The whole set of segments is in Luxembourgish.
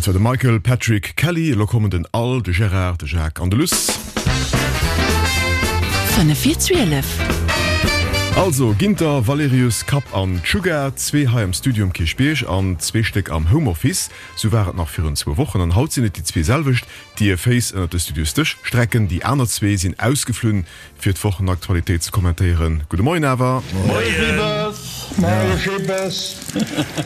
Dat war de Michael Patrick Kelly. Elo kommen den Al, de Gérard, de Jacques an de Luss. 5 vir 12. Also, Ginter, Valerius, Kapp an Tsuga, zwee hei am Studio um Kierchbierg an zwee Stéck am Homeoffice. Sou war et nach virun zwou Wochen an haut sinn et déi zwee selwecht, déi hir Féiss ënnert de Studiosdësch strecken. Déi aner zwee sinn ausgeflunn, fir d'Wochenaktualitéit ze kommentéieren. Gudde Moien awer. Moie Moie Jibbes.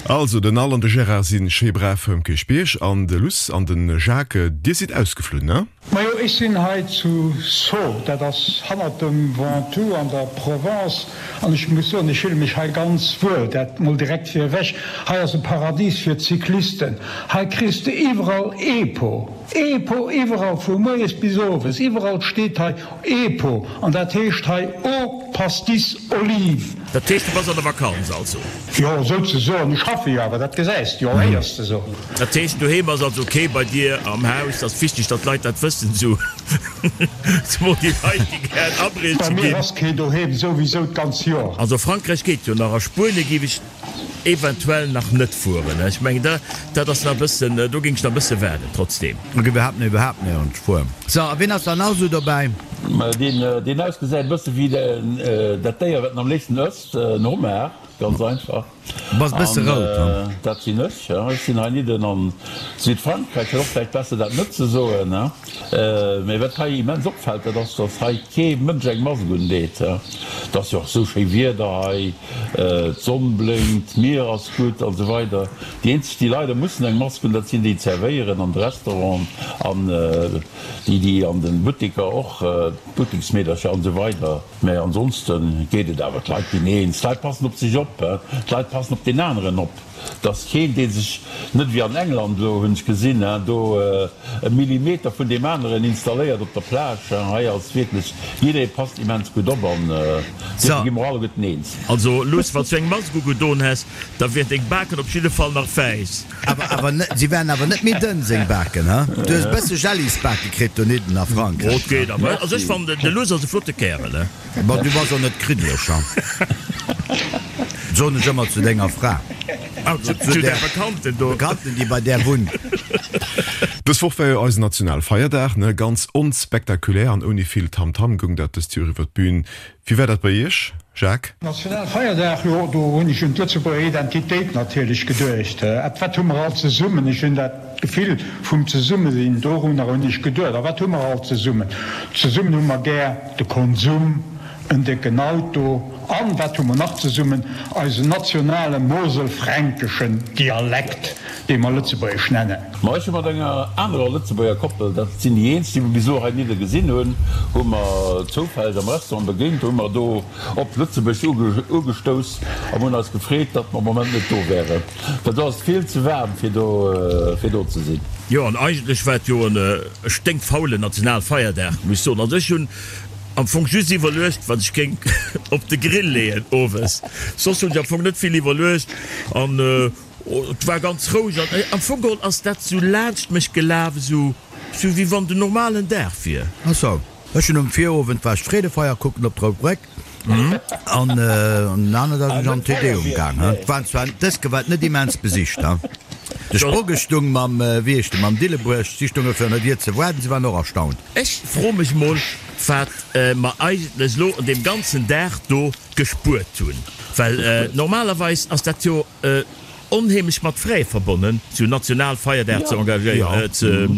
Also, den Al an de Gérard si schéi brav um Kierchbierg an de Luss an de Jacques, dir sidd ausgeflunn, ne? Majo, ech sinn hei zu Sceaux, dat ass hannert dem Ventoux an der Provence, an ech muss soen, ech fille mech hei ganz wuel, dat mol direkt vir ewech. Hei ass e Paradis fir d'Cyclisten, hei kriss de iwwerall Epo, Epo iwwerall, vu moies bis owes, iwwerall steet hei Epo, an dat heescht hei Eau Pastis Olive. Dat heescht, du bass an der Vakanz also? Jo, souzesoen. Ech schaffe jo awer, dat gesäis de jo, héiers de sou. Dat heescht, doheem ass also kee bei dir am Haus? Dat ass wichteg, datt d'Leit dat wëssen, sou zemol déi Leit, déi gären abrieche Bei mir ginn. ass kee doheem, souwisou d'ganz Joer. Also Frankräich geet jo nach, a Spuenie géif ech Eventuell nach net fueren. Ech mengen da, dat ass nach e bëssen, do géing ech nach e bësse waarden trotzdem. Ech iwwerhaapt net, iwwerhaapt néierens fueren. Sou, a wien ass dann nach esou dobäi? Deen, deen ausgesäit e bësse wéi dat Déier, wat en am léifsten ësst, en Homard, ganz einfach. Du bass e bësse rout, ha? Dat sinn ech, ja. Ech sinn heinidden an Südfrankräich. Wär och vläicht besser, dat net ze soen, ha. Mee wat hei immens opfält, dat ass, dass hei kee Mënsch eng Mask undeet. Et ass jo och esou schéi Wieder hei, d'Sonn blénkt, d'Mier ass gutt an esou weider. Déi eenzeg, déi leider mussen eng Mask hunn, dat sinn déi, déi zerwéieren an de Restauranten an déi, déi an de Butteker och, d'Butteksmeedercher an esou weider. Mee ansonste geet et awer. D'Leit ginn eens, d'Leit passen op sech op, d'Leit passen op deen aneren op. Et ass keen, dee sech, net wéi an England elo, hunn ech gesinn, do e Millimeter vun deem aneren installéiert op der Plage. Hei ass wierklech, jidderee passt immens gutt op an dofir gi mer alleguerten eens. Also Luss, wann s du eng Mask ugedon häss, da wieren deng Baken op jidde Fall nach wäiss. Awer, awer net, si waren awer net méi dënn, seng Baken, he? Du hues e bësse Jellisbake kritt donidden a Frankräich. Oh, et geet awer. Also ech fannen, de Luss ass e flotte Kärel, he? Bon, du bass och net kriddeleg, ha? Soen ech ëmmer zu denger Fra. Ah, zu, zu där Bekannten do. Bekannten, déi bei där wunnt. Dës Woch war jo eisen Nationalfeierdag, ne? Ganz onspektakulär an ouni vill Tamtam goung dat dëst Joer iwwer d'Bühn. Wéi war dat bei Iech, Jacques? Nationalfeierdag, jo, do hunn ech un d'Lëtzebuerger Identitéit natierlech geduecht. Wat hu mer all zesummen? Ech hunn dat Gefill vum Zesummesinn, dorunner hunn ech geduecht. A wat hu mer all zesummen? Zesummen hu mer gär de Konsum, en décken Auto an, wat hu mer nach zesummen? Eisen nationale moselfränkeschen Dialekt, dee mer Lëtzebuergesch nennen. Ma ech hu mat enger anerer Lëtzebuerger Koppel, dat sinn déi eenzeg, déi mer bis elo heinidde gesinn hunn, hu mer zoufälleg am Restaurant begéint, hu mer do op Lëtzebuerg ugestouss an hunn eis gefreet, datt mer am Moment net do wären. Well do ass et vill ze waarm fir do fir do ze sinn. Jo, an eigentlech war et jo e sténkfaulen Nationalfeierdag, muss ech soen. Also ech hunn am Fong just iwwerluecht, wat ech géing op de Grill leeën owes. Soss hunn ech am Fong net vill iwwerluecht an et war ganz roueg. An am Fong geholl ass dat sou laanscht mech gelaf, esou wéi wann den normalen Dag wier. Ach sou. Ech hunn um Virowend war ech d'Freedefeier kucken op d'Rout Bréck an den aneren Dag sinn ech an den Te Deum gaang. Et waren zwar dës Ke war et net immens besicht. De Sprogge stung mam, wéi heescht e, mam Dillebuerg, si stunge virun der Dier ze waarden, si waren och erstaunt. Ech froe mech mol, wat mer eigentlech elo un deem ganzen Dag do gespuert hunn, well normalerweis ass dat jo onheemlech mat Frais verbonnen, sou Nationalfeierdag ze engagéieren,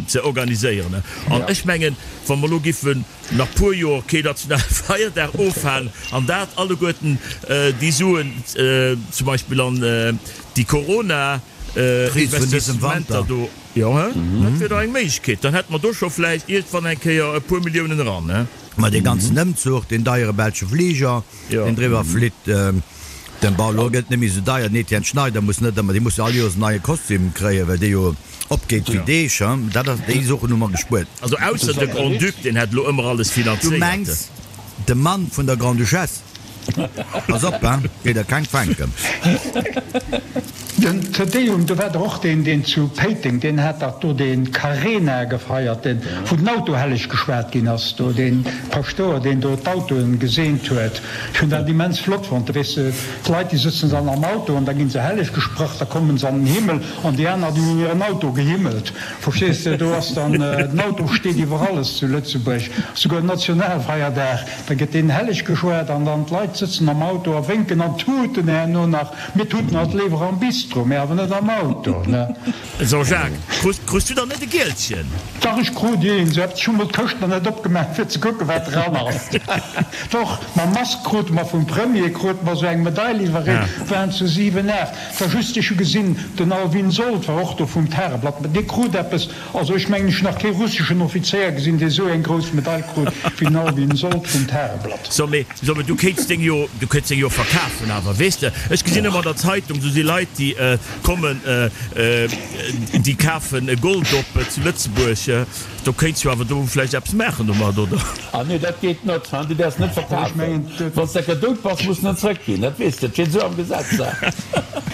ze organiséieren. An ech mengen, wa mer elo giffen nach puer Joer kee Nationalfeierdag ofhalen an dat alleguerten déi Suen zum Beispill an déi Corona Investissementer do, jo, dat wier dach eng Méiglechkeet, dann hätte mer do scho vläicht iergendwann eng Kéier e puer Milliounen eran. Mä dee ganzen Ëmzuch, deen deiere belsche Fliger, deen driwwer flitt, den, bon, elo gëtt et net méi esou deier, den Etienne Schneider muss net ëmmer, dee muss jo all Joers en neie Kostüm kréien, well dee jo opgeet wéi Deeg, hein, dat ass, déi Soochen hu mer gespuert. Also ausser de Grand-Duc, deen hätt elo ëmmer alles Du finanzéiert. mengs de Mann vun der Grande-Duchesse? Pass op, hein, géi der keng fänken. Den Te Deum, do war dach och deen, deen zu Péiteng, deen hat dach do dee Carena gefeiert, deen, wou den Auto helleg geschwat ginn ass, do dee Paschtouer, deen do d'Autoen geseent huet. Ech hunn dat immens flott fonnt. Weess de, d'Leit, déi sëtzen dann am Auto an da gi se helleg gesprach, da kommen se an den Himmel an déi aner, déi hunn hiren Auto gehimmelt. Verstees de, do ass dann, den Auto steet iwwer alles zu Lëtzebuerg, souguer Nationalfeierdag, da gëtt deen helleg geschwat an dann d'Leit sëtzen am Auto a wénken an tuten herno nach. Mir tuten alt léiwer am Bistro, mä awer net am Auto, ne? Jean-Jacques, krus, krus du dann net e Gielchen? Dach, ech krut een. Sou eppes. Ech hu mol d'Këscht nach net opgemaach, fir ze kucken, wat dran ass. Doch, mam Mask krute mer vum Premier krute mer sou eng Medail iwwerreecht, waren zu 7, 8. War just, ech hu gesinn, den Alvin Sold war och do vum Tageblatt, dee krut eppes. Also ech mengen, ech hu nach kee russeschen Offizéier gesinn, dee sou eng grouss Medail krut wéi den Alvin Sold vum Tageblatt. So, mee, so, mee du kéints deng jo, du kéints deng jo verkafen awer, weess de. Ech gesinn ëmmer an der Zeitung, sou si Leit, déi kommen, déi kafen Gold op zu Lëtzebuerg. Do kéints jo awer do vläicht eppes maachen domat, oder? Ah nee, dat geet net, hein, du däerfs net verkafen. Wann s de enker dout bass, muss en en zrëckginn, dat weess de, dat steet esou am Gesetz, hein.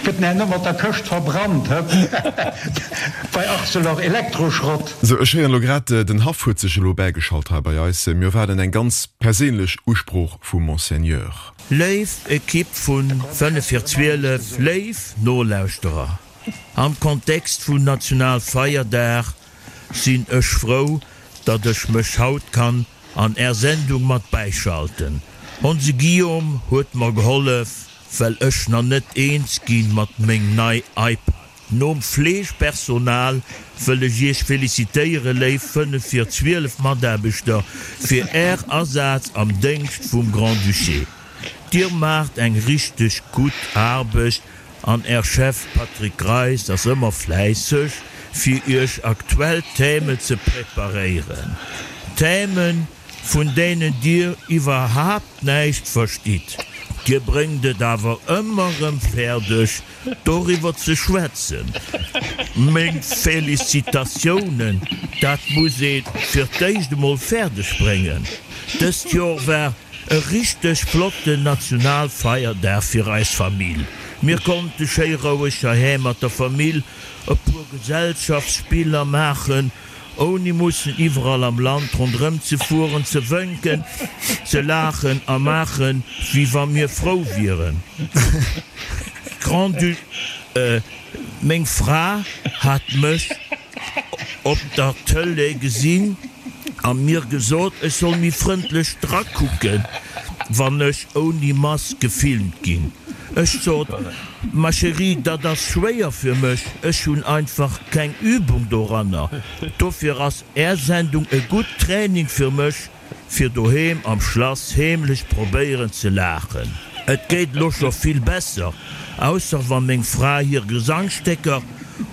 Gëtt en herno mat der Këscht verbrannt, hë? Bei Arcelor Elektroschrott. Sou, ech héieren elo grad, den Haff huet sech elo bäigeschalt hei bei eis. Mir erwaarden eng ganz perséinlech Usprooch vum Monseigneur. Léif Ekipp vun 5 vir 12, léif Nolauschterer, am Kontext vun Nationalfeierdag sinn ech frou, datt ech mech haut kann an är Sendung mat bäischalten. Onse Guillaume huet mer gehollef, well ech na net eens ginn mat meng nei iPad. Nom Fleegepersonal wëll ech iech felicitéieren, léif 5 vir 12 Mataarbechter, fir är Asaz am Déngscht vum Grand-Duché. Dir maacht eng richteg gutt Aarbecht An Är Chef Patrick Greis ass ëmmer fläisseg fir Iech aktuell Thèmen ze preparéieren. Thèmen vun deenen Dir iwwerhaapt näischt verstitt. Dir bréngt et awer ëmmer rëm fäerdeg doriwwer ze schwätzen. Meng Felicitatiounen, dat muss ee fir d'éischt emol fäerdeg bréngen. Dëst Joer war E richteg flotten Nationalfeierdag fir eis Famill. Mir konnte schéi roueg heiheem mat der Famill e puer Gesellschaftsspiller maachen, ouni mussen iwwerall am Land ronderëm ze fueren, ze wënken, ze laachen a maachen, wéi wa mir frou wieren. Grand-Duc. Meng Fra hat mech op der Tëlee gesinn a mir gesot, ech soll méi frëndlech drakucken, wann ech ouni Mask gefilmt ginn. Ech sot, Ma chérie, dat ass schwéier fir mech, ech hunn einfach keng Übung doranner. Dofir ass Är Sendung e gutt Training fir mech. Fir doheem am Schlass heemlech probéieren ze laachen. Et geet elo scho vill besser, ausser wa meng Fra hir Gesangsstécker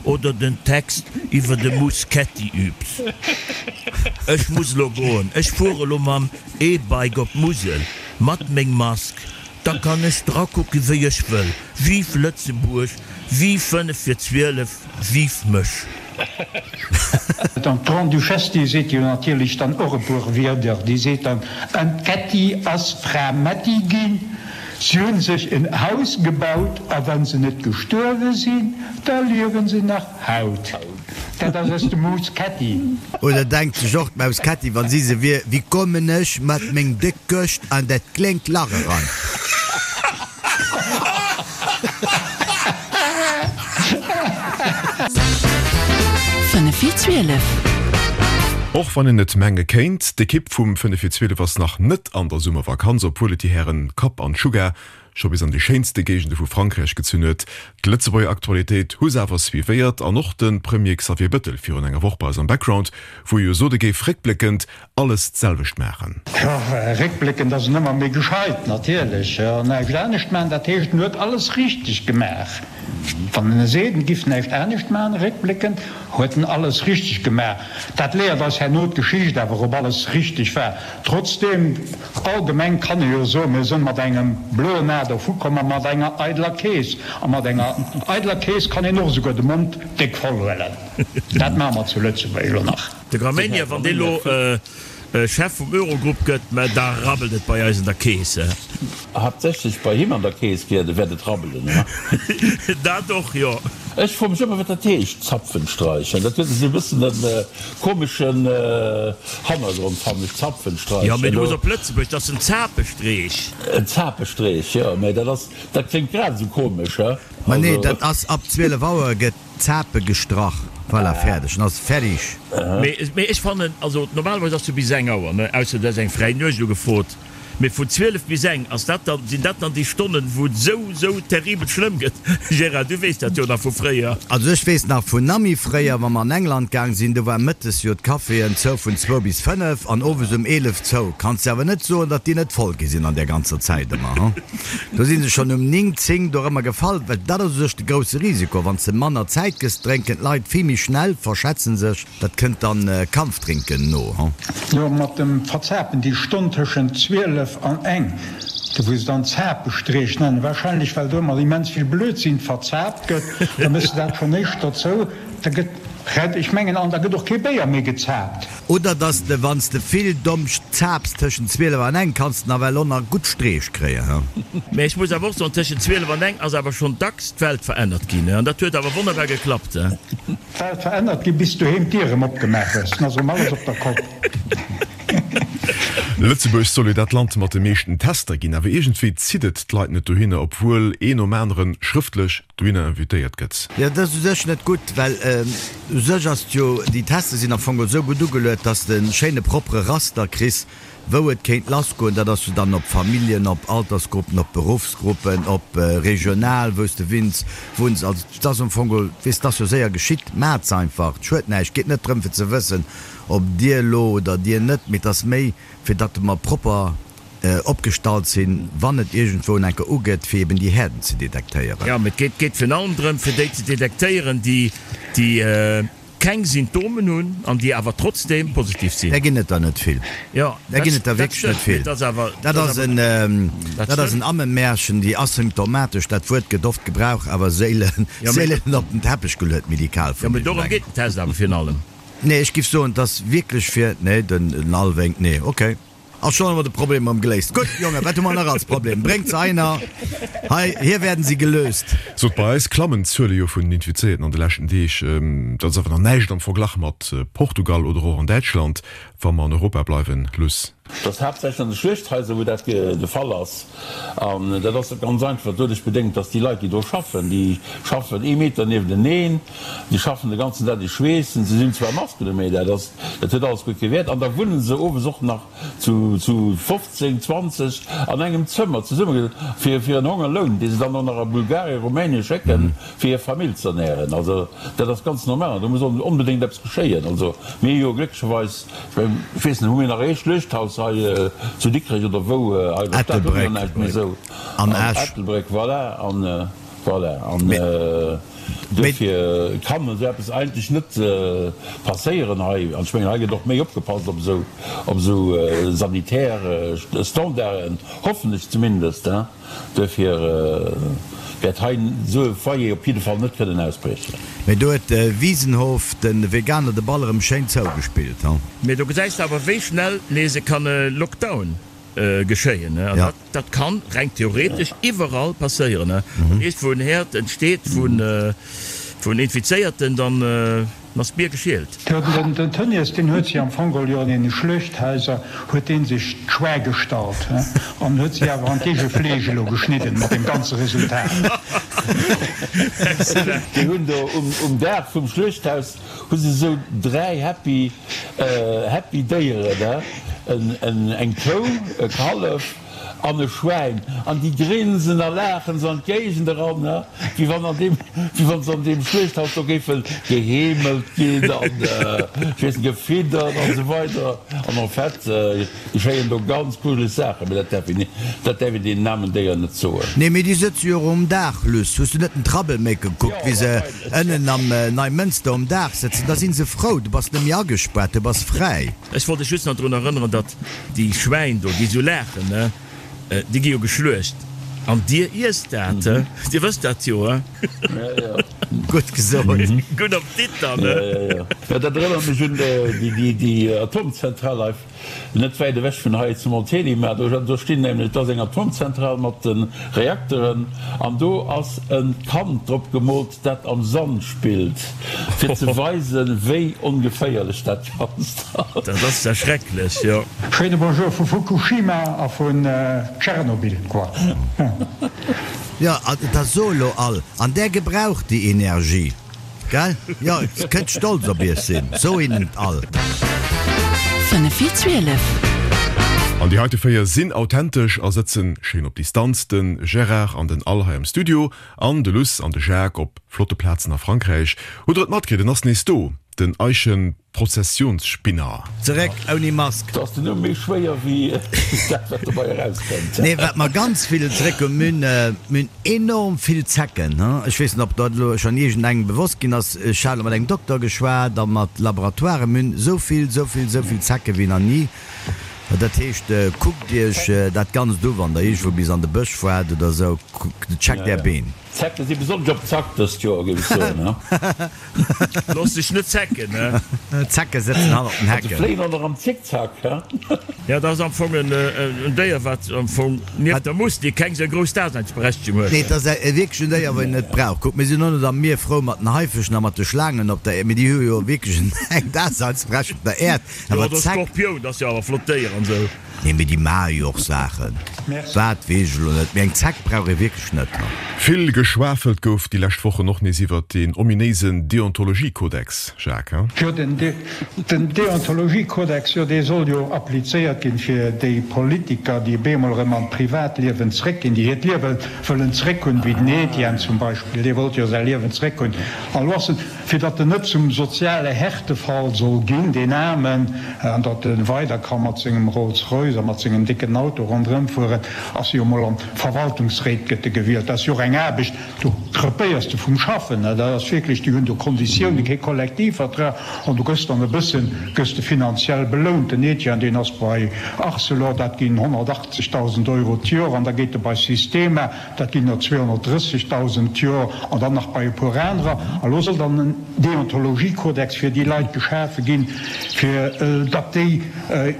oder den Text iwwer de Muschetti übt. Ech muss elo goen, ech fuere lo mam E-Bike op d'Musel, mat meng Mask, da kann ech drakucke wéi ech wëll. Vive Lëtzebuerg, vive 5 vir 12, vive mech! An d'Grande-Duchesse, déi seet jo natierlech dann och e puer Wierder. Déi seet dann, An d'Kätti ass Fra Mätti ginn. Si hunn sech en Haus gebaut, a wa se net gestuerwe sinn, da liewe se nach haut. Dat ass aus dem Maus Kätti. Oder denkt sech och d'Maus Kätti, wann si se wier, Wéi kommen ech mat meng déck Këscht an dat kléngt Lach eran? Och wann een et menge kéint, d'Ekipp vum 5 vir 12 ass nach net an der Summervakanz, obwuel et déi Hären Kapp an Sugar scho bis an déi schéinste Géigende vu Frankräich gezunn huet. D'Lëtzebuerger Aktualitéit hu se awer suivéiert an och de Premier Xavier Bëttel virun enger Woch bei eis am Background, wou e jo sot, e géif réckbléckend alles d'selwecht maachen. Jo, réckbléckend ass en ëmmer méi gescheit, natierlech. An näischt anescht maachen, dat heescht, en huet alles richteg gemaach. Wann en seet, en giff näischt anescht maachen, réckbléckend huet en alles richteg gemaach. Dat léiert eis herno d'Geschicht awer, ob alles richteg war. Trotzdeem, allgemeng kann ee jo soen, mir sënn mat engem bloen A dervukomm a mat enger eideler Keess. A mat enger eideler Keess kann een och esouguer de Mond déck voll huelen. Dat maache mer zu Lëtzebuerg elo nach. De Gramegna, wann dee lo. Chef vum Eurogrupp gëtt, mä da rabbelt et bei eis an der Keess. Haaptsächlech bei him an der Keess wäert et rabbelen, he? Dat och, jo. Ech froe mech ëmmer, wat dat heescht, Zapfenstreichen. Dat huet esou e bëssen e komeschen Hannergrond, fannen ech, Zapfenstreichen. Jo, mee du muss op Lëtzebuerg, dat ass en Zapestreech. En Zapestreech, jo, mee dat ass, dat kléngt grad esou komesch, he? Ma nee, dat ass ab 12 Auer gëtt Zape gestrach. Voilà, fäerdeg. En ass fertig. Mee ech fannen, also normalerweis ass jo bis eng Auer, ne, ausser du häss eng fräi Nuecht ugefrot, mee vun 12 bis eng, ass dat dann, sinn dat dann déi Stonnen, wou et esou, esou terribel schlëmm gëtt? Gérard, du weess dat jo nach vu fréier. Also ech weess nach vun Nami fréier, wa mer an England gaang sinn, do war mëttes jo d'Caféen zou vun zwou bis 5 an owes um 11 zou. Kanns de awer net soen, datt déi net voll gi sinn an där ganzer Zäit ëmmer, hu. Do si se schonn um 9, 10 dorëmmer gefall, well dat ass u sech de grousse Risiko. Wann s de manner Zäit gëss, drénken d'Leit vill méi schnell, verschätzen sech, dat kënnt dann Kampfdrinken no. Jo, mat dem Verzapen, déi Stonn tëschent 12 an eng, do wou se dann Zapestreech nennen, wahrscheinlech well do ëmmer immens vill Blödsinn verzaapt gëtt, da méchs de dat schonn éischter zou, da gëtt, ech mengen, an da gëtt och kee Béier méi gezaapt. Oder dass de wanns de vill Domscht zaaps tëschent 12 an eng kanns de nawell och nach gutt Streech kréien, he? Mä ech muss awer och soen, tëschent 12 an eng ass awer schonn dacks d'Welt verännert ginn, he? An dat huet awer wonnerbar geklappt, he? D'Welt verännert ginn, bis doheem d'Dier erëm opgemaach hues, dann ass erëm alles op der Kopp. Lëtzebuerg soll jo dat Land mat de meeschten Tester ginn, awer iergendwéi zitt et d'Leit net dohinner, obwuel een nom aneren schrëftlech dohinner invitéiert gëtt. Jo, dat ass u sech net gutt, well u sech ass et jo, déi Tester sinn am Fong esou gutt ugeluet, dass de e schéine propere Raster kriss, wou et kéint lassgoen. Dat ass jo dann op Familljen, op Altersgruppen, op Beruffsgruppen, op regional, wou s de winns, wunns. Also et ass am Fong, weess, et ass jo séier geschitt. Maacht se einfach, et schued näischt. Et geet net drëm fir ze wëssen, ob dir elo oder dir net, mee et ass méi fir datt mer propper opgestallt sinn, wann et iergendwou en enker ugeet, fir eben déi Häerden ze detektéieren. Jo, mee et geet geet virun allem drëm, fir déi ze detektéieren, déi déi keng Symptomen hunn an déi awer trotzdeem positiv sinn. Där ginn et der net vill. Jo, Där ginn et der wierklech net vill. Dat ass awer, Dat ass en, dat ass en Ammemärchen, déi asymptomatesch, dat Wuert gëtt oft gebrauch, awer séilen, séilen op den Teppech geluet, medikal vun Jo, mee dorëm geet den Test awer virun allem. Nee, ech giff soen, et ass wierklech fir, nee, den Alwénk, nee, okay. A schonn hu mer de Problem erëm geléist. Gutt, Jongen, wat hu mer nach als Problem? Bréngt se einer. Hei, hier werden sie gelöst. Sot, bei eis klammen d'Zuele jo vun den Infizéierten an de leschten Deeg. Dat ass awer nach näischt am Verglach mat Portugal oder och an Däitschland, wa mer an Europa bleiwen. Luss. Dat ass haaptsächlech an de Schluechthaiser, wou dat de Fall ass. An dat ass ganz einfach doduerch bedéngt, dass déi Leit, déi do schaffen, déi schaffen ee Meter niewenteneen, déi schaffen de ganzen Dag, déi schweessen, se hunn zwar Masken u, mee dat ass, dat huet alles guer kee Wäert. An da wunne se owes och nach zu zu 15, 20 an engem Zëmmer zesumme fir fir en Hongerloun, dee se dann och nach a Bulgarien, Rumänien schécken, fir hir Famill ze ernären. Also dat ass ganz normal an do muss onbedéngt eppes geschéien. Also mir hu jo glécklecherweis, ech mengen, ech weess net, hu mir nach ee Schluechthaus hei zu Dikrech oder wou hei an der Stad? Hu mir jo näischt méi esou. An Esch. Ettelbréck, voilà. An voilà. An duerfir kann esou eppes eigentlech net passéieren hei. An ech mengen, hei gëtt och méi opgepasst op esou, op esou sanitär Standarden, hoffen ech zumindest. Duerfir wäert hei esou e Foyer op jidde Fall net kënnen ausbriechen. Mee do huet de Wiesenhof de Veganer de Ball erëm schéin zougespillt, he? Mee do gesäis de awer wéi schnell nees e kann e Lockdown geschéien, he? An dat kann reng theoretesch iwwerall passéieren, he? Wann iergendwou en Herd entsteet vun Infizéierten, dann ass d'Bier geschielt. Jo, den Tönnies, deen huet si am Fong geholl jo an deene Schluechthaiser huet dee sech d'Schwäi gestallt, he, an huet si awer an d'eege Fleesch elo geschnidden, mat deem ganze Resultat. Déi hunn do um Daach vum Schluechthaus hu se esou 3 happy, happy Déieren, he, eng Kou, e Kallef An e Schwäin, an déi grinsen a laachen se an d'Géigend eran, wéi wann an deem, wéi wann se an deem Schluechthaus do géife geheemelt ginn an, ech weess net, gefiddert an esou weider. An en fait geschéien do ganz grujeleg Saachen, mee dat däerf een, dat däerf een deenen aarmen Déieren net soen. Nee, mee déi sëtze jo och um Daach, Luss. Hues du net den Troublemaker gekuckt, wéi se ënnen am Neimënster um Daach sëtzen? Da si se frou, du bass net méi agespaart, du bass fräi. Ech wollt dech just nach drun erënneren, datt déi Schwäin do, déi esou laachen, ne, déi gi jo geschluecht. An dir iesst dat, he? Dir wësst dat jo, he? Gutt gesot. Gudden Appetit dann, he? Jo, dat erënnert mech un déi Atomzentral hei net wäit ewech vun hei zu Montélimar. Do stinn nämlech, do ass eng Atomzentral mat de Reakteren an do ass e Kand drop gemoolt, dat am Sand spillt, fir ze weisen, wéi ongeféierlech dat Ganzt ass. Dat ass ja schrecklech, jo. Schéine Bonjour vu Fukushima a vun Tschernobyl, quoi. Jo, da so elo all, an där gebraucht déi Energie. Gell? Jo, kënnt stolz op iech sinn, so hinnen et all. 5 vir 12. An déi heite 4 sinn authentesch a sëtzen schéin op Distanz, de Gérard an den Al hei am Studio an de Luss an de Jacques op flotte Plazen a Frankräich. Hutt der et matkritt, en ass nees do, den Eischen. Prozessionsspinner. Zeréck ouni Mask. Do ass den Numm méi schwéier wéi dat wat dobei erauskënnt. Nee, wat mer ganz vill zeréck hunn, mir hunn, mir hunn enorm vill Zecken. Ech weess net, ob dat elo schonn iergendengem bewosst ginn ass. Ech hat elo mat engem Dokter geschwat a mat Laboratoiren. Mir hunn esou vill, esou vill, esou vill Zecke wéi nach ni. Dat heescht, kuckt Iech dat Ganzt u wann Der iergendwou bis an de Bësch fuert oder esou. Checkt Är Been. D'Zecke si besonnesch op Zack dëst Joer, géif ech soen. Looss dech net zecken, he? D'Zecke sëtzen hannert den Hecken. Se fléien och nach am Zickzack, he? Jo, dat ass am Fong en Déier, wat am Fong nieft der Mustik keng sou grouss Daseinsberechtegung huet. Nee, et ass wierklech en Déier, wat een net brauch. Kuck, mir sinn och net am Mier frou mat den Haifëschen a mat de Schlaangen op der Äerd, mee déi hu jo wierklech eng Daseinsberechtegung op der Äerd. Jo, Awer oder d'Zeck. Skorpioun, dat ass jo awer e flott Déier an sou. Nee, mee déi maache jo och Saachen. Wat, weess ech elo net. Mee eng Zeck brauch ee wierklech net. Vill geschwafelt gouf déi lescht Wochen och nees iwwert deen ominéisen Deontologiekodex, Jacques, hein? Jo, den Deontologiekodex, jo, dee soll jo applizéiert ginn, fir déi Politiker, déi bemol erëm an d'Privatliewen zréckginn, déi hiert Liewe wëllen zréckhunn, wéi den Etienne zum Beispill, dee wollt jo säi Liewen zréckhunn. An elo ass en. Fir datt en net zum soziale Härtefall soll ginn, deen Aarmen, an datt e weider ka mat sengem Rolls-Royce a mat sengem décken Auto ronderëm fueren, ass jo emol an d'Verwaltungsréit gëtt e gewielt. Dat ass jo och eng Aarbecht, do krepéiers de vum Schaffen. Dat ass wierklech, déi hunn do Konditiounen, kee Kollektivvertrag, an du gëss dann e bëssen, gëss de finanziell belount. Den Etienne, deen ass bei Arcelor, dat ginn 180.000 Euro d'Jor, an da geet e bei Sistema, Dat ginn der 230.000 d'Joer an dann nach bei e puer anerer. A lo soll dann en Deontologiekodex fir déi Leit geschafe ginn, fir datt déi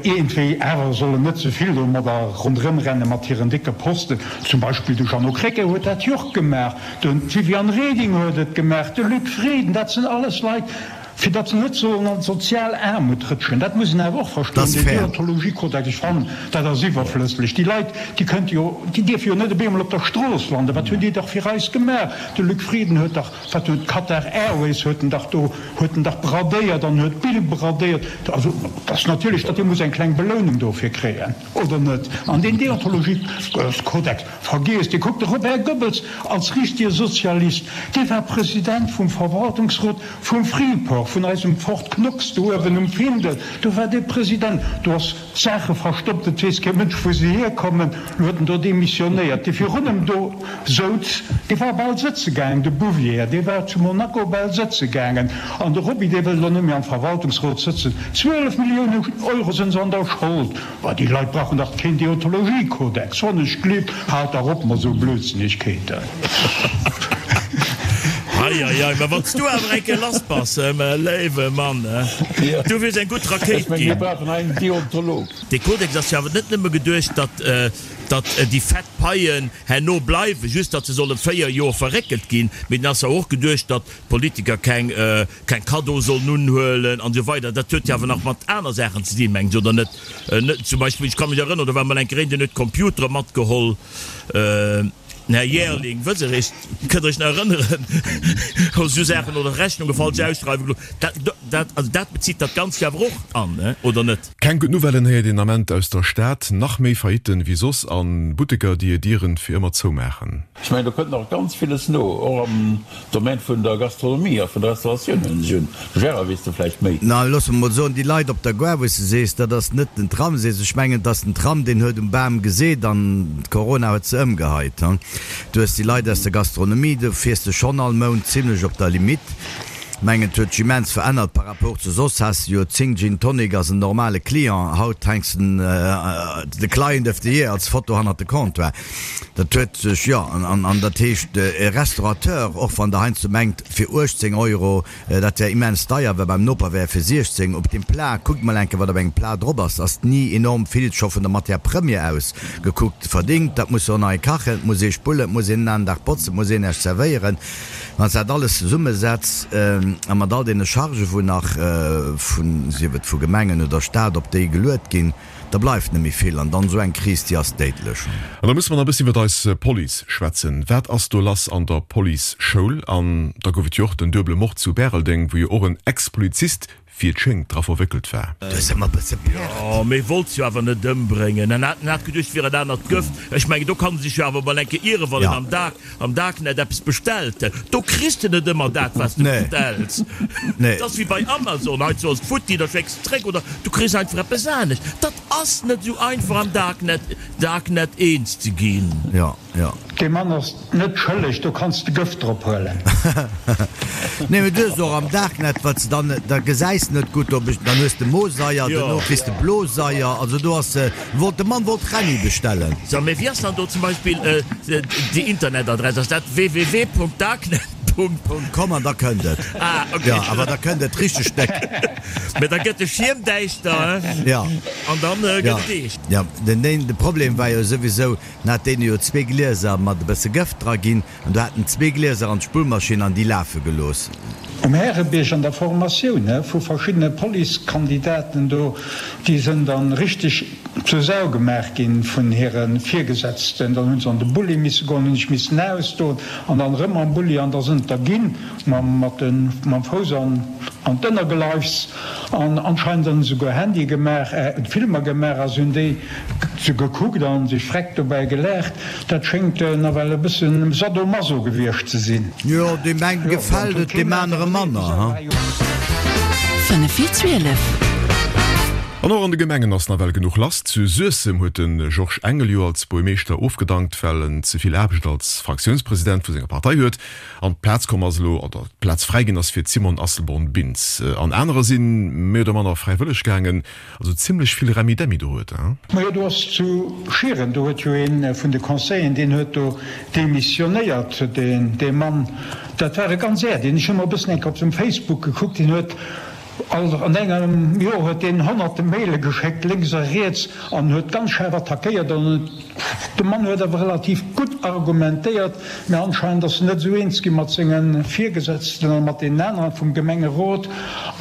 iergendwéi awer sollen net ze vill domadder ronderëmrenne mat hiren décke Posten. Zum Beispill de Jeannot Krecké huet dat jo och gemaach, d'Viviane Reding huet et gemaach, de Luc Frieden, dat sinn alles Leit, Fir datt se net sollen an d'sozial Aarmut rëtschen. Dat muss een awer och verstoen. Deen Deontologiekodex, ech fannen, dat ass iwwerflësslech. Déi Leit, déi kënnte jo, déi dierfe jo net op eemol op der Strooss landen. Wat hunn déi dach fir eis gemaach? De Luc Frieden huet dach, wat huet d'Qatar Airways huet en dach do, huet en dach bradéiert an huet d'Bill bradéiert. Also, dat ass natierlech, datt dee muss eng kleng Belounung dofir kréien, oder net? An deen Deontologiekodex, vergiesst dee. Kuckt, de Robert Goebbels als richtige Sozialist, dee war President vum Verwaltungsrot, Vum Freeport, vun eisem Fort Knox do uewen um Findel, do war dee President, do ass Saache verstoppt, et weess kee Mënsch wou se hierkommen, lo huet en do demissionéiert. Dee virun em do souz, dee war bal sëtze gaangen, de Bouvier, dee war zu Monaco bal sëtze gaangen. An de Roby, dee wëll elo net méi am Verwaltungsrot sëtzen. 12 Milliounen Euro sinn se an der Schold. Bah, déi Leit brauchen dach keen Deontologiekodex, wann ech glift. Haalt dach op mat esou Blödsinnegkeeten. Ei, ei, ei, ma wann s du awer eng Kéier lass bass, mä léiwe Mann, du wiers eng gutt Rakéit Ech meng, mir ginn. brauchen hei en Deontolog. Dee Kodex ass jo awer net nëmme geduecht, datt, datt déi fett Paien herno bleiwen, just datt se solle 4 Joer verréckelt ginn, mee den ass jo och geduecht, datt d'Politiker keng, keng Cadeau sollen unhuelen an esou weider. Dat huet jo awer nach mat aner Saachen ze dinn, mengen ech, oder net? Net zum Beispill, ech ka mech erënneren, do war emol eng Kéier een, deen huet Computere matgeholl, den Här Jaerling, wësst Der Iech, kënnt Der Iech nach erënneren, esou Saachen, oder Rechnunge falsch ausschreiwe gelooss. Dat, dat, also dat bezitt dat Ganzt jo awer och an, oder net? Keng gutt Nouvellen héiert een Ament aus der Stad, nach méi Faillitten wéi soss an Butteker déi hir Dieren fir ëmmer zoumaachen. Ech mengen, do kënnt nach ganz villes no, och am Domaine vun der Gastronomie a vun der Restauratioun, huelen ech un. Gérard, weess de vläicht méi? Na, looss mer mol soen, déi Leit op der Gare, wou s de sees, dat ass net den Tram, sees, ech mengen, et ass den Tram, deen huet um Bam geseet an d'Corona huet se ëmgeheit. Du hues déi Leit aus der Gastronomie, do fiers de schonn all Mount zimlech op der Limite. Mengen et huet sech immens verännert par rapport zu soss has de jo 10 Gin Tonic ass en normale Client, haut hänks den de Client of the Year als Foto hannert de Comptoir. Dat huet sech jo an an dat heescht e Restaurateur, och wann der heiansdo mengt fir 18 Euro dat wär immens deier, well beim Noper wär e fir 16 op dem Plat, kuckt mol enke wat op engem Plat drop ass, ass ni enorm vill scho vun der Matière première aus gekuckt verdingt. Dat muss jo och nach ee kachen, et muss ee spullen, et muss een en aneren Dag botzen, et muss een näischt zerwéieren. Wann s de dat alles zesummesetz a mat all deene Chargen, wou nach vun, sief et vu Gemengen oder Staat, op déi geluet ginn, da bleift net méi vill. An dann esou eng Kris, déi ass déidlech. An da musse mer nach e bëssen iwwert eis Police schwätzen. Wat ass do lass an der Police-Schoul? An da gouf et jo och den duebele Mord zu Bäreldeng, wou jo och en Ex-Polizist wéi et schéngt, dra verwéckelt war. Du hues ëmmer bësse Pert. Jo, mee wollt se jo awer net ëmbréngen. En hat, en hat geduecht, et wier en anert Gëft. Ech mengen, do kann e sech jo awer mol eng Kéier ieren, wann en am Dark, am Darknet eppes bestellt. Do kriss de net ëmmer dat, wat s de bestells. Et ass wéi bei Amazon, hei ass et futti, da schécks de zréck oder du kriss einfach eppes anescht. Dat ass net esou einfach am Darknet, Darknet eens ze ginn. Jo. Jo. Dee Mann ass net schëlleg, do kanns de Gëft drop huelen. Nee, mee du hues och am Darknet, wat se dann, da gesäis de net gutt, ob ech, dann hues de Moseier, dono kriss de Bloseier, also do ass, wollt, de Mann wollt Renni bestellen. So, mee wéi ass dann do zum Beispill déi Internetadress? Ass dat www.darknet. .com an da kënnt et. Ah, ok. Jo, awer da kënnt et richteg déck. Mee da gëtt de Schierm däischter, he? Jo. An dann gëtt et eescht. Jo, den, de Problem war jo souwisou, Dann hat deen jo zwee Glieser mat e bësse Gëft dra ginn an du hat en zwee Glieser an d'Spullmaschinn an déi lafe gelooss. Um Härebierg an der Formatioun vu verschiddene Policekandidaten do, déi sënn dann richteg zur Sau gemaach ginn vun hire Virgesetzten. Dann hunn se an de Bulli misse goen, hunn sech missen ausdoen an dann erëm am Bulli an da sënn et der ginn mam Fouss an d'Ënnergeleifs. An anscheinend hunn se souguer Handye gemaach, Filmer gemaach a se hunn déi se gekuckt a sech freck dobäi gelaacht. Dat schéngt nawell e bëssen Sadomaso gewiescht ze sinn. Jo, deem engem gefält et, deem anere manner, ha. 5 vir 12. An och an de Gemengen ass nawell genuch lass. Zu Suessem huet de Georges Engel jo als Buermeeschter ofgedankt, well en ze vill Aarbecht als Fraktiounspresident vu senger Partei huet. An d'Plaz komm ass elo, oder d'Plaz fräi ginn ass fir d'Simone Asselborn-Bintz. An anerer si méi oder manner fräiwëlleg gaangen. Also zimlech vill Remmidemmi do huet, hein? Majo, do ass zu Schieren, do huet jo ee vun de Conseilleren, deen huet do demissionéiert, deen, dee Mann, dat war e ganz Äerdeen. Ech hu mer e bëssen eng Kéier op sengem Facebook gekuckt, deen huet all, an engem Joer huet deen honnerte Maile geschéckt, lénks a riets, an huet ganz schaarf attackéiert an de Mann huet awer relativ gutt argumentéiert, mä anscheinend ass en net esou eens gi mat senge Virgesetzten a mat deenen aneren vum Gemengerot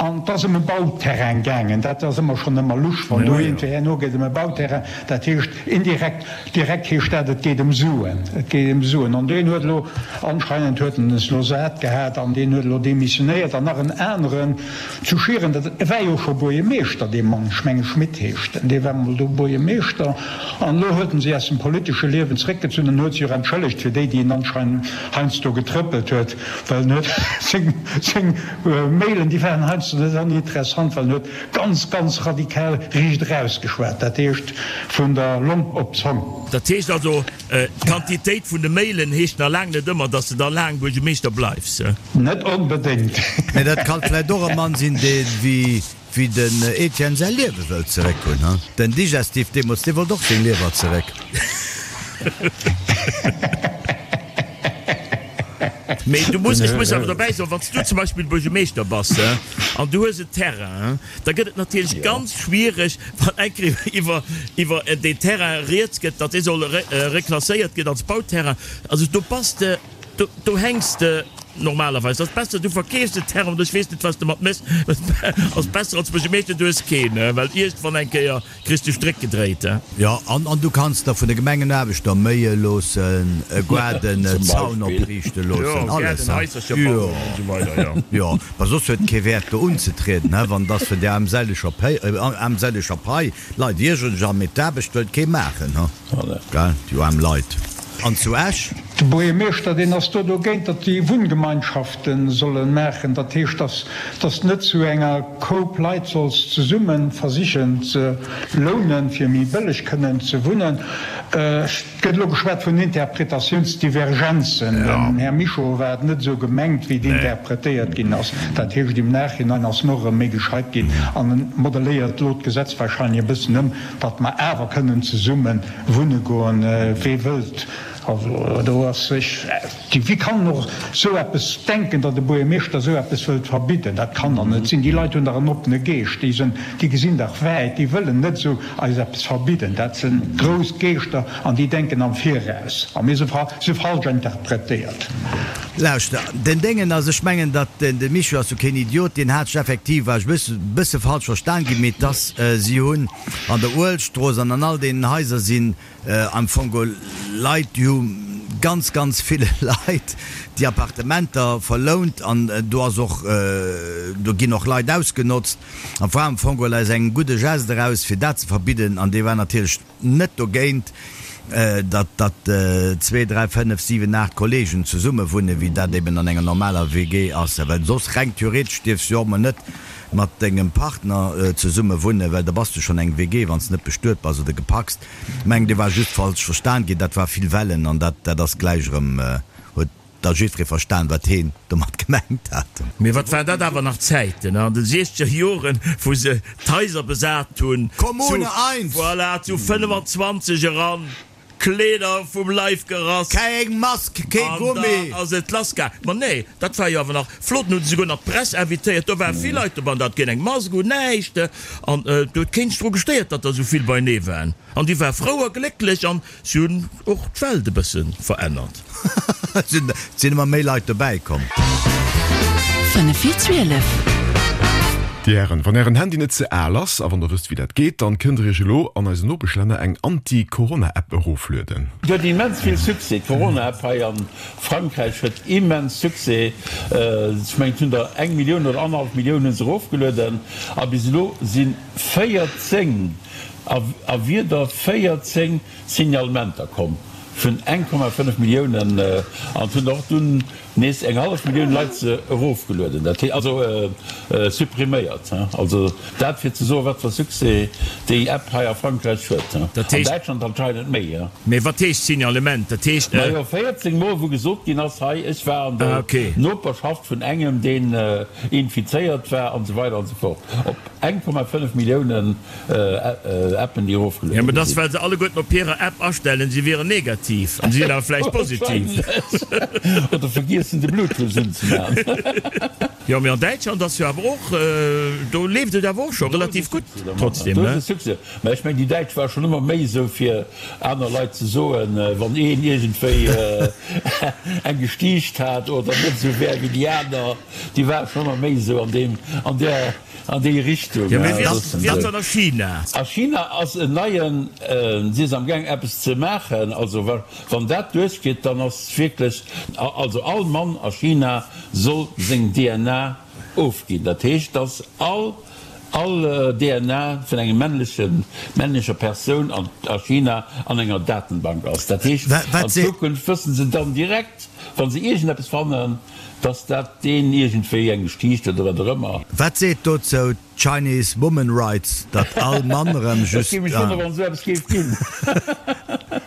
an et ass ëm e Bauterrain gaangen. Dat ass ëmmer schonn ëmmer lusch, wann do iergendwéi herno geet ëm e Bauterrain, dat heescht indirekt, direkt heescht dat, et geet ëm Suen, et geet ëm Suen. An deen huet elo, anscheinend huet en es elo sat gehat an deen huet elo demissionéiert an nach en aneren, Zu Schieren, dat war jo scho Buerjemeeschter, dee Mann, ech menge Schmit heescht en, dee war mol do Buerjemeeschter an elo huet en sech aus dem politesche Liewen zréckgezunn an huet sech och entschëllegt fir déi, déi en anscheinend heiansdo getrëppelt huet, well en huet seng, seng Mailen, déi waren heiansdo net oninteressant, well en huet ganz, ganz radikal riicht eraus geschwat, dat heescht vun der Long op d'Zong. Dat heescht also, D'Quantitéit vun de Mailen heescht nach laang net ëmmer, dass de da laang Buergemeeschter bleifs. Net onbedéngt. Mee dat kann vläit och e Mann sinn, dee wéi den Etienne säi Liewe wëllt zeréck hunn, he? Den Digestif deemools, dee wollt och seng Liewer zeréck. Mee du muss, ech muss awer dobäi soen, wann s du zum Beispill Buergemeeschter bass, he, an du hues en Terrain, he, Da gëtt et natierlech ganz schwiereg, wann eng Kéier iwwer, iwwer deen Terrain rieds gëtt, datt dee soll reklasséiert ginn als Bauterrain. Also do bass de, do, do hänks de normalerweis. Ass besser, du verkeefs den Terrain oder ech weess net, wat s de mat méchs. Ass besser als Buergermeeschter, du hues keen, well iergendwann eng Kéier Kriss de Stréck gedréit, he? Jo, an an du kanns der vun de Gemengenaarbechter méie loossen, e Goarden, e Zaun opriichte loossen, alles, he? Jo, jo, ma soss huet et kee Wäert do unzetrieden, he, wann et ass vun där armseleger Pei, armseleger Pai. D'Leit iergeren sech an, mee d'Aarbecht wëllt kee maachen, he? Gell, déi aarm Leit. An zu Esch? De Buergermeeschter, deen ass do dogéint, datt déi Wunngemeinschafte solle maachen. Dat heescht, datt datt net zu enger Koup Leit solls zesumme versichen ze lounen, fir méi bëlleg kënnen ze wunnen. Et gëtt elo geschwat vun Interpretatiounsdivergenzen. Dem Här Mischo war et net esou gemengt, wéi et interpretéiert ginn ass. Dat heescht, im Nachhinein ass en och erëm méi gescheit ginn an en modeléiert elo d'Gesetz wahrscheinlech e bëssen ëm, datt mer awer kënnen zesumme wunne goen, wee wëllt. Also do ass sech, wéi kann en och esou eppes denken, datt e Buergermeeschter esou eppes wëllt verbidden? Dat kann dach net sinn. Déi Leit hunn dach en oppene Geescht, déi sinn, déi gesinn dach wäit, déi wëllen net esou eis eppes verbidden. Dat si grouss Geeschter an déi denken am Viraus. A mir si falsch interpretéiert. Lauschter, den Déngen ass, ech mengen, datt de Micho ass jo keen Idiot, deen hat sech effektiv, war ech e bësse falsch verstan ginn, mee dass si hunn an der Uelstrooss an an all deenen Haiser sinn Am Fong geholl Leit, déi hu ganz, ganz ville Leit déi Appartementer verlount an do ass och, do ginn och Leit ausgenotzt. An war am Fong geholl aus engem gudde Geste eraus, fir dat ze verbidden. An dee war natierlech net dogéint, datt, datt zwee, dräi, fënnef, siwen, aacht Kollegen zesumme wunnen, wéi dat eben an enger normaler WG ass. Well soss reng theoretesch dierfs du jo och mol net mat dengem Partner zesumme wunnen, well da bass du schonn eng WG, wann s de net bestuet bass oder gepacst. Mengen dee war just falsch verstan ginn, dat war vill Wellen an dat dat ass gläich erëm, huet da jiddweree verstan wat heen domat gemengt hat. Mee wat waren dat awer nach Zäiten an de siechzeger Joren, wou se d'Haiser besat hunn, Kommune eins! Voilà, zu 25 eran, Kleeder vum Leif gerass. Keng Mask, kee Gummi! An dann ass et lass gaang. Ma nee, dat war jo awer nach flott. Dann hu se souguer nach d'Press invitéiert, do ware vill Leit doban, da hat keen eng Mask un, näischt. An do huet keen sech dru gestéiert, datt der esou vill beinee waren. An déi ware frou a glécklech an si hunn och d'Welt e bësse verännert. Et sinn ëmmer méi Leit dobäi komm. 5 vir 12. Dir Hären, wann Ären Handy net ze al ass, a wann der wësst wéi dat geet, dann kënnt der Iech elo an eisen Nopeschlänner eng Anti-Corona-App eroflueden. Déi huet immens vill Succès, d'Corona-App hei a Frankräich huet immens Succès. Ech mengen et hunn der eng Millioun oder annerhallef Millioun hu se erofgelueden a bis elo si 14 a wieder 14 Signalementer komm vun 1,5 Milliounen an et hunn der och dunn nees eng hallef Millioun Leit se erofgelueden, dat hee also suppriméiert. Also dat fir ze soen, wat fir Succès déi App hei a Frankräich huet. An Däitschland anscheinend méi. Mee wat heescht Signalement? Dat heescht. Majo 14 Mol wou gesot ginn ass, hei ech war an der Noperschaft vun engem deen infizéiert war an esou weider an esou fort. Op 1,5 Milliounen Appen déi erofgeluede Jo, mä dat ass well se alleguerten op hirer App astellen, se wieren negativ an se sinn awer vläicht positiv. Wahrscheinlech. Oder vergiessen de Bluetooth unzemaachen. Jo, mee an Däitschland ass jo awer och, do leeft et awer och scho relativ gutt trotzdem, ne? Do ass e Succès. Mä ech mengen, déi Däitsch ware schonn ëmmer méi esou fir aner Leit ze soen, wann een iergendwéi eng gestiicht hat oder net esou wär wéi déi aner, déi ware schonn ëmmer méi esou an deem, an där, an déi Richtung. Jo, mee wéi ass wéi ass dat a China? A China ass en neien, si ass amgaang eppes ze maachen, also wann dat duerchgeet, dann ass wierklech, also all Mann a China soll seng DNA ofginn. Dat heescht, dass all all DNA vun engem männlechen, männlecher Persoun an a China an enger Datenbank ass. Dat heescht, an Zukunft wëssen se dann direkt, wa se iergendeppes fannen, dass dat deen iergendwéi eng gestiicht huet oder wat och ëmmer. Wat seet dozou d'Chinese Woman Rights, datt all Mann erëm just. Ech géif mech wonnere wann esou eppes géif ginn.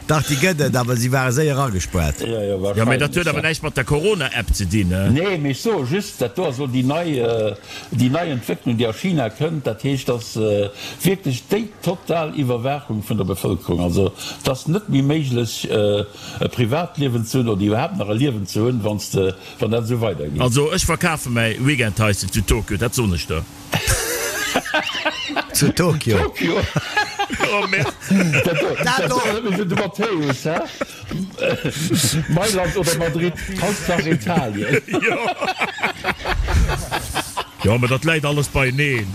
Dach, déi gëtt et, awer si ware séier agespuert. Jo, jo, Jo, mee dat huet awer wahrscheinlech. näischt mat der Corona-App ze dinn, ne? Nee, mee ech soe just, dat do ass elo déi nei, déi nei Entwécklung, déi a China kënnt. Dat heescht, dass wierklech déi total Iwwerwaachung vun der Bevëlkerung, also et ass net méi méiglech e Privatliewen ze hunn oder iwwerhaapt nach e Liewen ze hunn, wann s de, wann dat esou weidergeet. Also ech verkafe mäi Weekendhaischen zu Tokio, dat soen ech der. Zu Tokio. Tokio? Oh merde. Dat do, dat erënnert mech un de Matthäus, hä? Mailand oder Madrid, Hauptsache Italien. Jo. Jo, mä dat läit alles beieneen.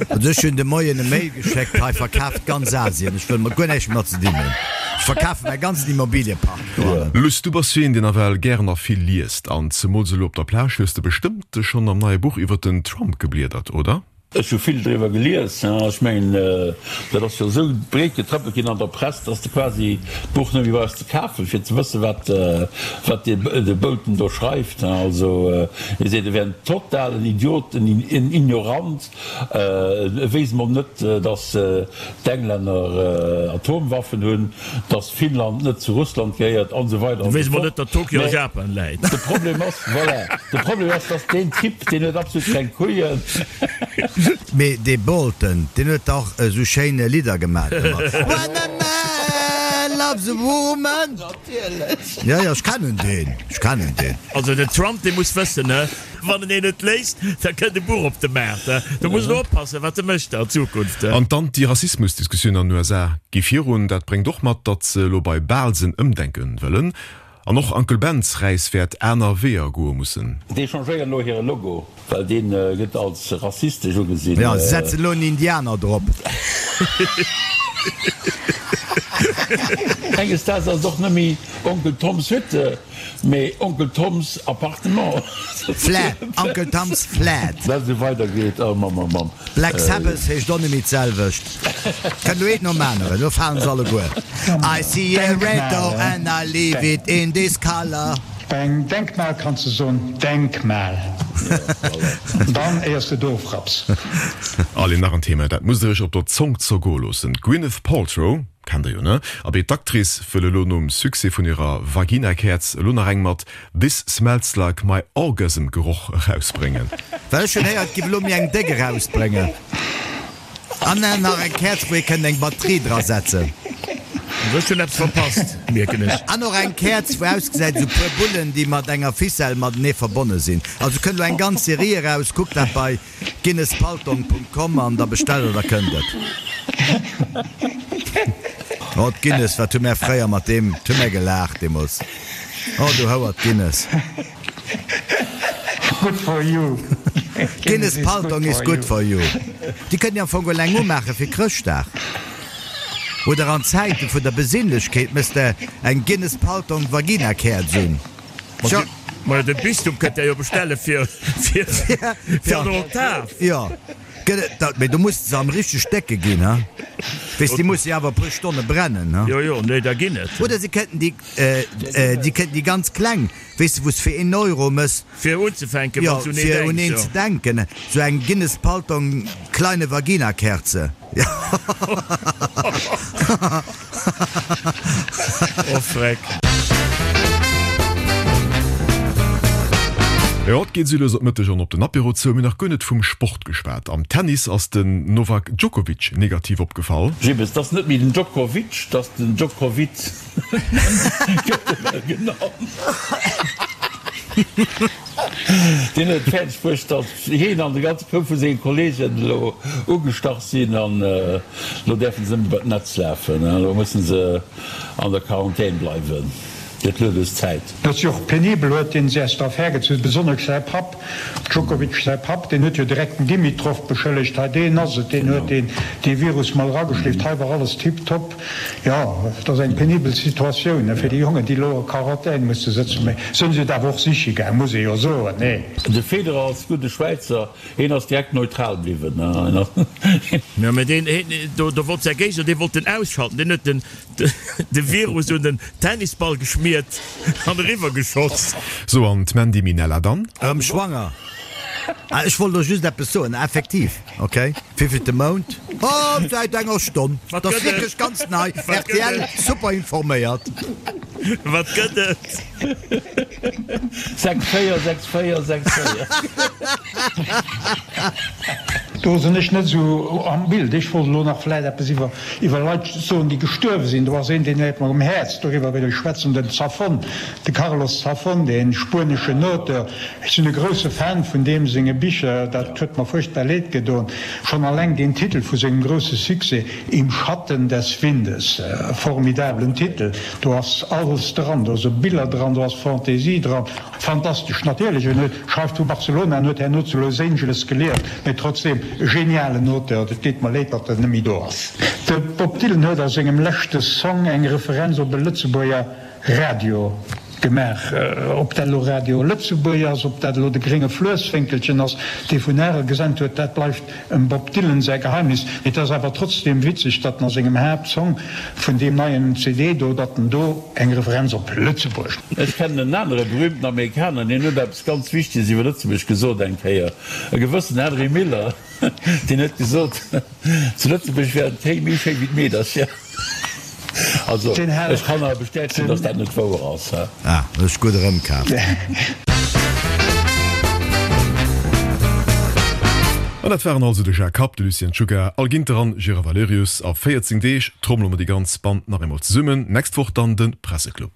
Also ech hunn de Moien e Mail geschéckt, hei verkaaft ganz Asien, ech wëll mat guer näischt méi mat ze dinn hunn, ech verkafe mäi ganzen Immobiliepark dohannen. Luss, du bass jo een, deen nawell gären a vill liest. An zemools elo op der Plage hues de bestëmmt schonn am neie Buch iwwer den Trump gebliedert, oder? Ech hu vill driwwer gelies. Ech mengen, dat ass jo esou breet getrëppelt ginn an der Press, dass de quasi d'Buch net méi brauchs ze kafen, fir ze wëssen, wat, wat de Bolton do schreift. Also, hie seet, e wär en totalen Idiot, en Ignorant, e wéisst mol net, dass d'Englänner Atomwaffen hunn, dass Finnland net zu Russland gehéiert an esou weider an esou fort. Net, datt Tokio a Japan läit. De Problem ass, voilà, de Problem ass, dass deen Typ, deen huet absolut keng Couillen. Mee dee Bolton, deen huet dach esou schéin Lidder gemat ëmmer. When a man loves a woman. Natierlech. Jo, jo, ech kennen deen, ech kennen deen. Also den Trump, dee muss wëssen, he, Wann en een net léisst, da kënnt e Buch op de Maart. Do muss en oppassen, wat e mécht an Zukunft. An d'Anti-Rassismus-Diskussioun an den USA gi virun. Dat bréngt och mat, datt se elo bei Baalsen ëmdenke wëllen. An och Uncle Ben's Räis wäert aner Weeër goe mussen. Déi changéieren elo hire Logo, well dee gëtt als rassistesch ugesinn. Jo, se setzen elo en Indianer drop. Enges Daags ass et och net méi Onkel Toms Hütte. Mee Onkel Toms Appartement. Flat, Uncle Tom's Flat. Well esou weider geet, oh Mamm, oh Mamm. Black Sabbath heescht och net méi d'selwecht. Kënnt elo eent nom aneren, elo falen se alleguer. I see a red door and I leave it in this color. Bei engem Denkmal kanns de soen, Denkmal. Dann éiers de d'ofrapps. Allez, nach en Thema, dat musst der iech op der Zong zergoe loossen, D'Gwyneth Paltrow, Kennt der jo, ne? Abee, d'Actrice wëll elo nom Succès vun hirer Vagina-Käerz elo nach eng mat This smells like my orgasm Geroch erausbréngen. Well ech hunn héiert, giff elo méi eng déck erausbréngen. An nach eng Käerz wou ee kënnt eng Batterie dra setzen. Ech hunn eppes verpasst, mierken ech. An och eng Käerz wou ausgesäit esou puer Bullen déi mat enger Ficelle matenee verbonne sinn. Also kënnt elo eng ganz Serie eraus, kuckt dat bei Guinness-Paltong.com an da bestellt der, da kënnt et. Oh d'Guinness, wat hu mär fréier mat deem, wat hu mär gelaacht deemools. Oh du Houer, d'Guinness. Good for you. Guinness Paltong is good for you. Déi kënnt Dir am Fong elo eng umaache fir Chrëschtdag. Oder an Zäite vun der Besinnlechkeet mëss de eng Guinness Paltong Vagina-Käerz un. Tjo. Majo, de Bistum kënnt der jo bestelle fir fir an Oktav. Jo, gëtt et dat, mee do muss de se am richteg décke ginn, ha? Weess, déi musse jo awer e puer Stonne brennen, ha? Jo, jo, nee, da ginn et. Oder se kënnten déi, déi kënnten déi ganz kleng, weess de, wou s fir een Euro mëss. Fir unzefänken, wann s un een denks, jo. Fir un een ze denken, sou eng Guinness Paltong kleine Vagina-Kerze. Oh freck. Jo, et geet esou lues op Mëtteg an op den Apéro zou. Mir nach guer net vum Sport geschwat. Am Tennis ass den Novak Djokovic negativ opgefall. Jibbes, 't ass net méi den Djokovic, 't ass den Djokovic gëtt e well genannt. Deen huet et fäerdeg bruecht, datt hien an de ganze Koup vu senge Kolleegen elo ugestach sinn an elo däerfe se net méi bei d'Netz lafen. Elo musse se an der Quarantän bleiwen. Gëtt lues Zäit. Dat ass jo och penibel, huet deen sech aus der Affär gezunn, besonnesch säi Papp, Djokovic säi Papp, deen huet jo direkt den Dimitrov beschëllegt, hei deen ass et, deen huet deen dee Virus mol erageschleeft, hei war alles tiptop. Jo, et ass eng penibel Situatioun fir déi Jongen, déi elo a Quarantän musse sëtzen. Mee se hunn et awer och siche gaang, muss ee jo soen, nee? De Federer als gudde Schwäizer, hien ass direkt neutral bliwwen. Jo, mee deen, do wollt säi Géigner, dee wollt en ausschalten, deen huet den de Virus un den Tennisball geschmiert an eriwwer geschoss. Sou, an d'Mandy Minella dann? Erëm schwanger? Ah, ech wollt elo just eppes soen, effektiv. Ok, wéivillte Mount? Oh, säit enger Stonn. Wat Dat ass gëtt et? wierklech ganz nei. Wat gëtt rtl, et? super informéiert. Wat gëtt et? 6, 4, 6, 4, 6, 4. Do sinn ech net esou am Bild. Ech wollt elo nach vläit eppes iwwer iwwer Leit soen, déi gestuerwe sinn. Do ass een, deen läit mer um Häerz, doriwwer wéll ech schwätzen, den Zafón, de Carlos Zafón, dee spueneschen Auteur. Ech sinn e grousse Fan vun deem senge Bicher, dat huet mer fuerchtbar leed gedoen. Schonn alleng deen Titel vu sengem grousse Succès, Im Schatten des Windes, e formidablen Titel, do ass alles dran, do si Biller dran, do ass Fantaisie dran, fantastesch. Natierlech, en huet schreift vu Barcelona, en huet herno zu Los Angeles gelieft, mee trotzdeem e genialen Auteur. Et deet mer leed, datt en net méi do ass. De Bob Dylan huet a sengem leschte Song eng Referenz op e Lëtzebuerger Radio. Gemaach. Ob dat elo Radio Lëtzebuerg ass, ob dat elo de grénge Fluesswénkelchen ass, dee vun Arel gesent huet, dat bleift em Bob Dylan säi Geheimnis. Mee et ass awer trotzdeem witzeg, datt en a sengem Haaptsong vun deem neien CD do, datt en do eng Referenz op Lëtzebuerg. Ech kennen en anere berühmten Amerikaner, deen huet eppes ganz Wichteges iwwer Lëtzebuerg gesot eng Kéier, e gewëssen Henry Miller. Deen huet gesot, zu Lëtzebuerg wären d'Kéi méi schéi wéi d'Meedercher. Also, ech kann awer bestätegen, datt dat net wouer ass. Ah, hues gutt erëmkaaft. An dat waren also de Jacques Kapp, de Lucien Czuga, Al Ginter an Gérard Valerius. A 14 Deeg trommele mer déi ganz Band nach eemol zesummen. Nächst Woch dann de Presseclub.